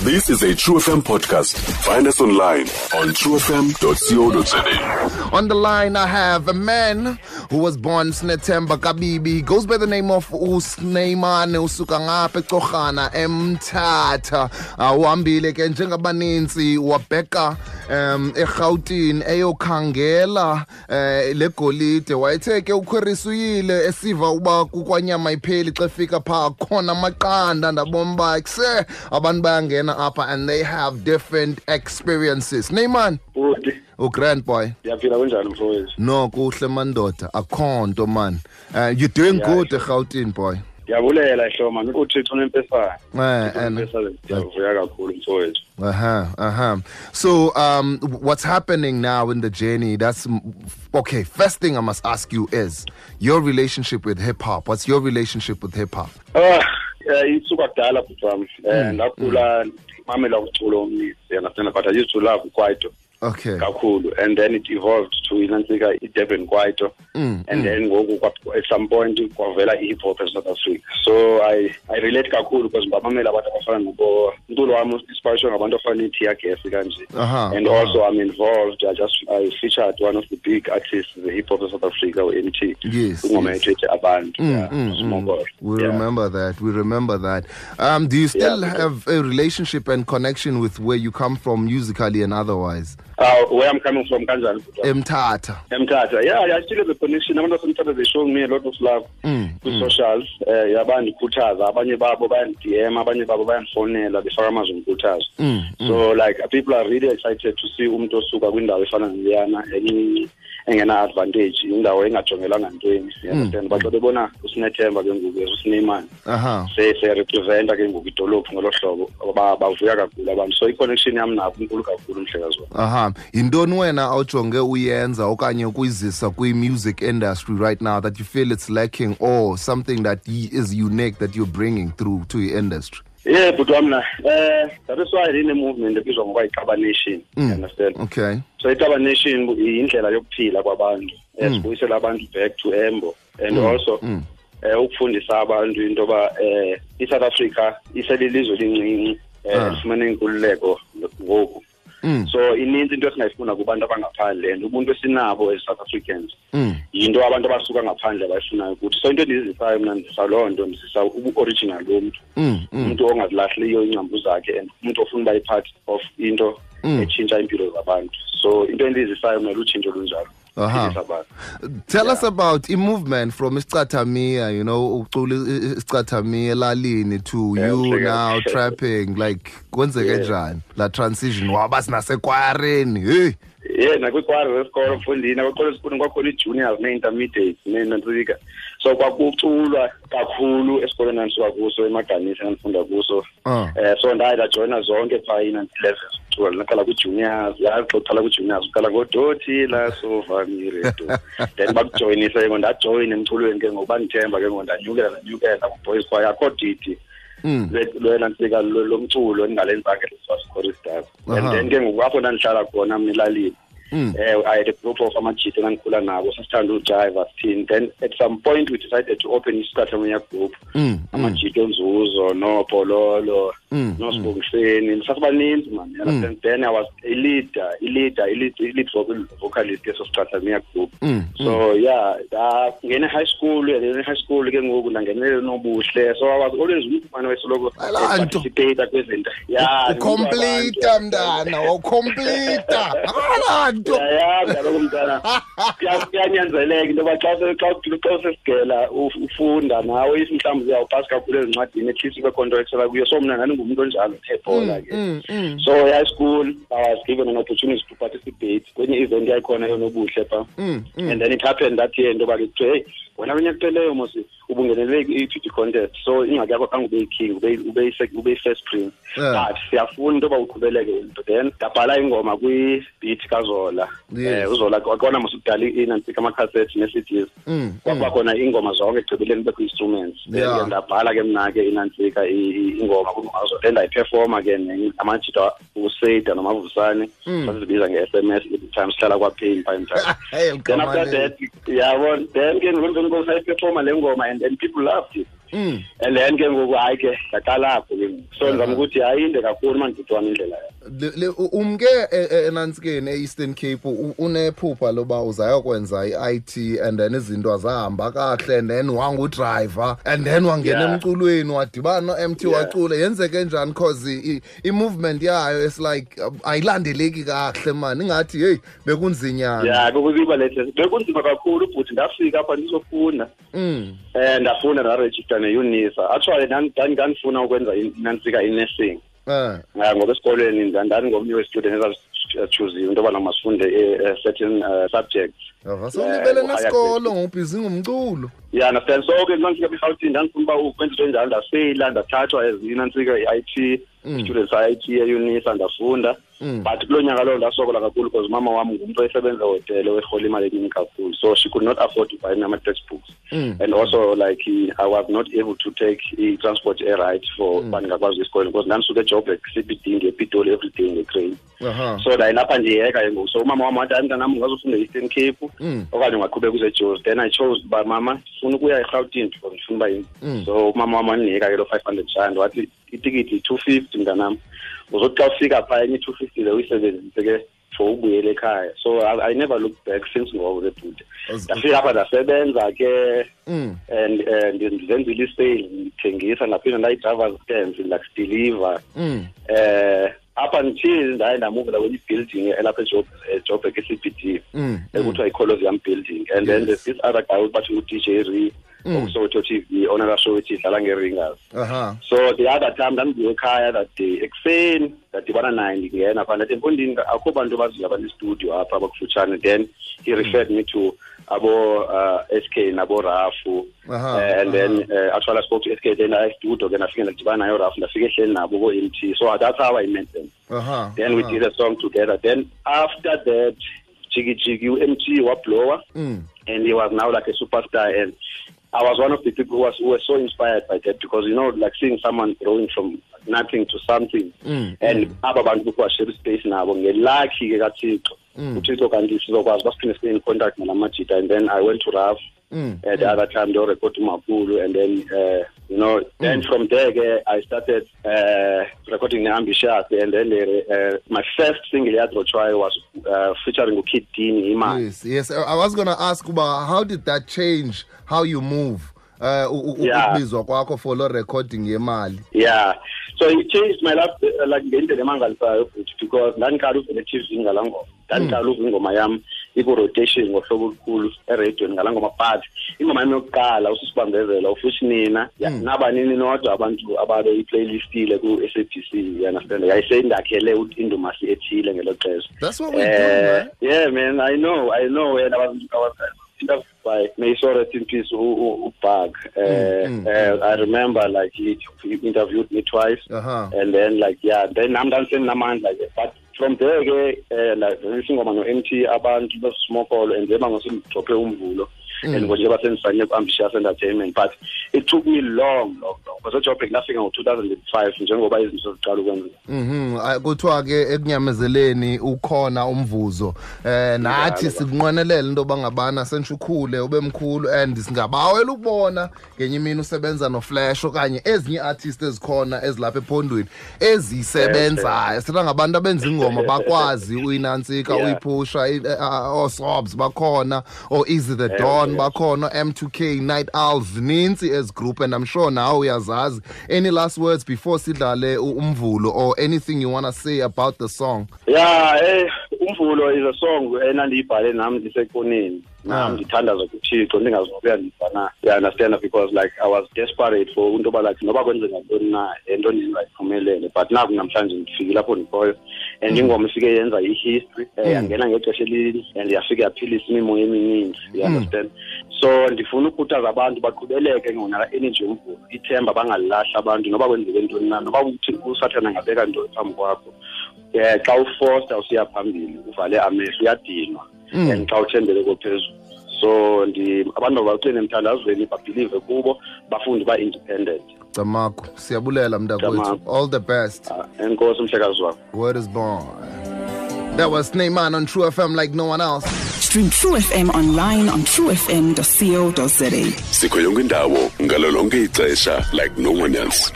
This is a True FM podcast. Find us online on truefm.co.za. On the line, I have a man who was born Snethemba Kabibi. He goes by the name of uSnyman, usuka ngapha eCorhana eMthatha. Uhambile ke njengabaninzi wabheka eRhawutini eyokhangela le golide. Wayethe ke ukhwerisa uyile esiva uba kukwanyama ipheli xa efika phaa khona amaqanda, ndabona uba kuse abantu bayangena apha and they have different experiences. Neyman. Bhuti. Grand boy. Ndiyaphila, kunjani mfowethu? No, kuhle mandoda, akho nto man. You're doing good eRhawutini, boy. Ndiyabulela hlo man, uThixo unempesana. And ndiyavuya kakhulu mfowethu. So what's happening now in the journey? That's okay. First thing I must ask you is your relationship with hip hop. What's your relationship with hip hop? Isuka kudala bhuti wam. Ndakhula ndimamela umculo omninzi, you understand, but I used to love kwaito. Okay. Kakhulu, and then it evolved to inantsika iDurban kwaito, and then ngoku at some point kwavela i-hip hop eSouth Africa. So I relate kakhulu because ndibamamela abantu abafana nobo umculo wam inspiration ngabantu abafana neTear Gas kanje. And also I'm involved. I featured one of the big artists the hip hop of South Africa, u-MT. Yes. Ingoma yethu ethi Abantu. We remember that. We remember that. Do you still have a relationship and connection with where you come from musically and otherwise? Where I'm coming from, kanjani? Mthatha. Mthatha. Yeah, I still have a connection. Abantu baseMthatha, they show me a lot of love kwi-socials. Yabandikhuthaza, abanye babo bayan-DM, abanye babo bayandifonela, befaka amazwi omkhuthazo. So like people are really excited to see umuntu osuka kwindawo efana naleyana encinci engena-advantage, indawo engajongelanga ntweni. You understand? But xa bebona uSinethemba ke ngoku, uSnyman, se-representa ke ngoku idolophu ngolo hlobo, bavuya kakhulu abantu. So i-connection yam nabo inkulu kakhulu, mhlekazi wam. Yintoni wena awujonge uyenza okanye ukuyizisa kwi-music industry right now that you feel it's lacking or something that is unique that you're bringing through to your industry? Yeah, bhuti wam na, that is why ine-movement ebizwa ngokuba yiXaba Nation. You understand? Okay. So iXaba Nation yindlela yokuphila kwabantu, sibuyisela abantu back to Embo, and also ukufundisa abantu into yoba iSouth Africa iselilizwe elincinci, lifumene inkululeko ngoku. So ininzi into esingayifuna kubantu abangaphandle, and ubuntu esinabo as South Africans yinto abantu abasuka ngaphandle abayifunayo kuthi. So into endizisayo mna, ndizisa loo nto, ndizisa ubu-original bomntu, umuntu ongazilahliyo iingcambu zakhe, and umuntu ofuna uba yi-part of into etshintsha iimpilo zabantu. So into endizisayo mna lutshintsho olunjalo. Tell us about a movement from isicathamiya, you know, ucula isicathamiya elalini to you now trapping, like kwenzeke njani la transition waba sinasekwareni? Hey. Yeah, nakwikwari zesikolo mfundini, nakwikolo esikolweni kwakhona ii-juniors nee-intermediates neenantsika. So kwakuculwa kakhulu esikolweni endandisuka kuso, eMaganisa endandifunda kuso. So ndaye ndajoyina zonke phaa ii-levels zokucula. Ndaqala kwi-juniors, yazi xa uqala kwi-juniors uqala ngodothi la sova mi re do. Then bakujoyinisa ke ngoku, ndajoyina emculweni ke ngoku, bandithemba ke ngoku, ndanyukela ku-boys choir. Akho didi lwenantsika lomculo endingalenzanga choristers. And then ke ngoku apho ndandihlala khona mna elalini, I had a group of amajita endandikhula nabo, sasithanda ujiva sithini. Then at some point we decided to open isicathamiya group, amajita onzuzo noopololo noSibongiseni, sasibaninzi man. You understand? Then I was a leader, i-lead vocalist yeso sicathamiya group. So yeah, ndangena high school, and high school ke ngoku ndangenele nobuhle. So I was always umfana wesoloko participate kwezinto. Yeah, ucomplete mntana, ucomplete. Yeah, kaloku mntana, kuyanyanzeleka into yoba xa usesigela ufunda nawe, if mhlawumbi uyawupasi kakhulu ezincwadini, at least ube khona into exela kuyo. So mna ndandingumntu onjalo ebhola ke. So high school I was given an opportunity to participate kwenye event yayikhona yonobuhle phaa. And then it happened that year into yoba ke kuthiwe, hey, wena kwinyaka ephelileyo mos ubungenele i-beauty contest, so ingxaki yakho khange ube yi-king, ube yi-first prince, but siyafuna into yoba uqhubeleke into. Then ndabhala ingoma kwi-beat kaZola. UZola kwakona mos kudala inantsika amakhasethi nee-CDs, kwakuba khona iingoma zonke ekugqibeleni kubekho instruments. Then ndabhala ke mna ke inantsika ingoma kwingoma kaZola, then ndayiphefoma ke amajita uSeda noMavusane, sasizibiza nge-SMS every time sihlala kwaPain phaa eMthatha. Then after that, yabona, then ke ngoku sayiphefoma le ngoma, and people loved it. And then ke ngoku hayi ke ndaqala apho ke ngoku. So ndizama ukuthi ayinde kakhulu mani bhuti wam indlela yam. Umke enantsikeni e-Eastern Cape unephupha loba uzayokwenza i-IT and then izinto azahamba kakuhle and then wangudrayiva and then wangena emculweni wadibana no-MT wacula. Yenzeke njani? Cause i-movement yayo is like ayilandeleki kakuhle mani, ingathi heyi bekunzinyana. Yeah, bekuziba lehle, bekunzima kakhulu bhuti. Ndafika apha ndizofunda, ndafunda ndarejista ne-UNISA. Actually ndandifuna ukwenza nantsika i-nursing. Ngoba esikolweni ndandingomnye we-student ezazichuziwe into yobana masifunde certain subjects. Sewulibele nesikolo ngobhizi ngomculo. Yeah, understand. So ke ndandifika eRhawutini ndandifuna uba ukwenza into enjalo, ndafeyila ndathathwa as inantsika i-IT students i-IT e-UNISA ndafunda. But kulo nyaka lowo ndasokola kakhulu because umama wam ngumntu osebenza ehotele werhola imali eningi kakhulu, so she could not afford to buy me ama-textbooks. And also like I was not able to take i-transport e-right for uba ndingakwazi esikolweni because ndandisuka eJoburg CBD ndiye ePitoli every day ngetrain. So ndayilapha ndiyeka ke ngoku. So umama wam wathi, hayi mntanam, ungazofunda e-Eastern Cape okanye ungaqhubeka uze eJozi. Then I chose uba mama ndifuna ukuya eRhawutini because ndifuna uba yini. So umama wam wandinika ke loo 500 rand, wathi itikiti yi-250 mntanam, uzothi xa ufika phaa enye i-250 le uyisebenzise ke for ubuyele ekhaya. So I never looked back since ngoko ke bhuti. Ndafika apha ndasebenza ke and ndizenzile i-sales, ndithengisa, ndaphinda ndayi-driver's stands, like deliver. Up until ndaye ndamuvela kwenye i-building elapha eJoburg e-CBD ekuthiwa yi-Colosseum building. And then there's this other guy bathi ngu-DJ Ree okuSoweto TV onela show ethi idlala nge-ringers. So the other time ndandibuye ekhaya that day ekuseni, ndadibana naye ndingena phaa, ndathi mfondini akho bantu baziyo abanestudio apha abakufutshane. Then he referred me to abo SK nabo Rafu. And then actually I spoke to SK, then I studio ke ndafika ndadibana naye uRafu, ndafika ehleli nabo ko-MT. So that's how I met them. Then we did a song together. Then after that Jiggy Jiggy MT wablower, and he was now like a superstar, and I was one of the people who were so inspired by that because, you know, like seeing someone growing from nothing to something. And aba bantu kuthiwa share space nabo ngelucky ke kaThixo. uThixo kanti sizokwazi basiphinde sibe in contact nalamajita. And then I went to Raf the other time they record uMakhulu, and then you know, then from there ke I started recording ne-Ambitious, and then my first single yadrotshwayo was featuring uKid Dini Imali. Yes, I was going to ask uba how did that change how you move? Ukubizwa kwakho for lo recording yemali. Yeah, so it changed my life like ngendlela emangalisayo futhi because ndandiqala uvela e-TV ngalaa ngoma, ndandiqala uva ingoma yam iku-rotation ngohlobo olukhulu eradiweni ngalaa ngoma. But ingoma yam yokuqala uSisibambezela ufuthi nina nabanini nodwa abantu ababeyiplaylistile ku-SABC, you understand, yayiseyindakhele indumasi ethile ngelo xesha. That's what we do, man. Yeah man, I know and I was interviewed by may so rest in peace uBug. I remember like he interviewed me twice. And then like yeah, then I'm dancing namandla ke. But from there ke like isingoma no-MT abantu besmokolo and njengoba ngosindidrophe umvulo and njengoba sendisayine ku-Ambitious Entertainment. But it took me long because eJoburg ndafika ngo-2005 njengoba izinto ziqala ukwenzeka. Kuthiwa ke ekunyamezeleni ukhona umvuzo. Nathi sikunqwenelela into yoba ngabana sentsho ukhule ube mkhulu, and singabawela ukubona ngenye imini usebenza noFlash okanye ezinye ii-artist ezikhona ezilapha ephondweni ezisebenzayo. Sithetha ngabantu abenza ingoma bakwazi uyinantsika uyiphusha, ooSobs bakhona, oo-Easy the Don bakhona, M2K, Night Owls, zininzi ezi group, and I'm sure nawe uyazazi. Any last words before sidlale umvulo or anything you want to say about the song? Yeah, umvulo is a song enandiyibhale nam ndisekoneni. Nam ndithandaza kuThixo ndingazobuya ndibana. You understand, because like I was desperate for into yoba like noba kwenzeka ntoni na into ndingayiphumelele, but naku namhlanje ndifikile apho ndikhoyo. And ingoma ifike yenza i-history, yangena ngexesha elili and yafike yaphilisa imimoya emininzi, you understand. So ndifuna ukukhuthaza abantu baqhubeleke ngona energy yomvulo, ithemba bangalilahli abantu noba kwenzeke ntoni na, noba uthi uSathana angabeka ntoni phambi kwakho. Xa ufosta usiya phambili uvale amehlo uyadinwa, and xa uthembele kophezulu. So abantu mabaqine emthandazweni, babhilive kubo, bafunde uba independent. Camagu, siyabulela mntakwethu. All the best. Enkosi mhlekazi wakho. Word is born. That was Snyman on True FM like no one else. Stream True FM online on truefm.co.za. Sikho yonke indawo ngalo lonke ixesha like no one else.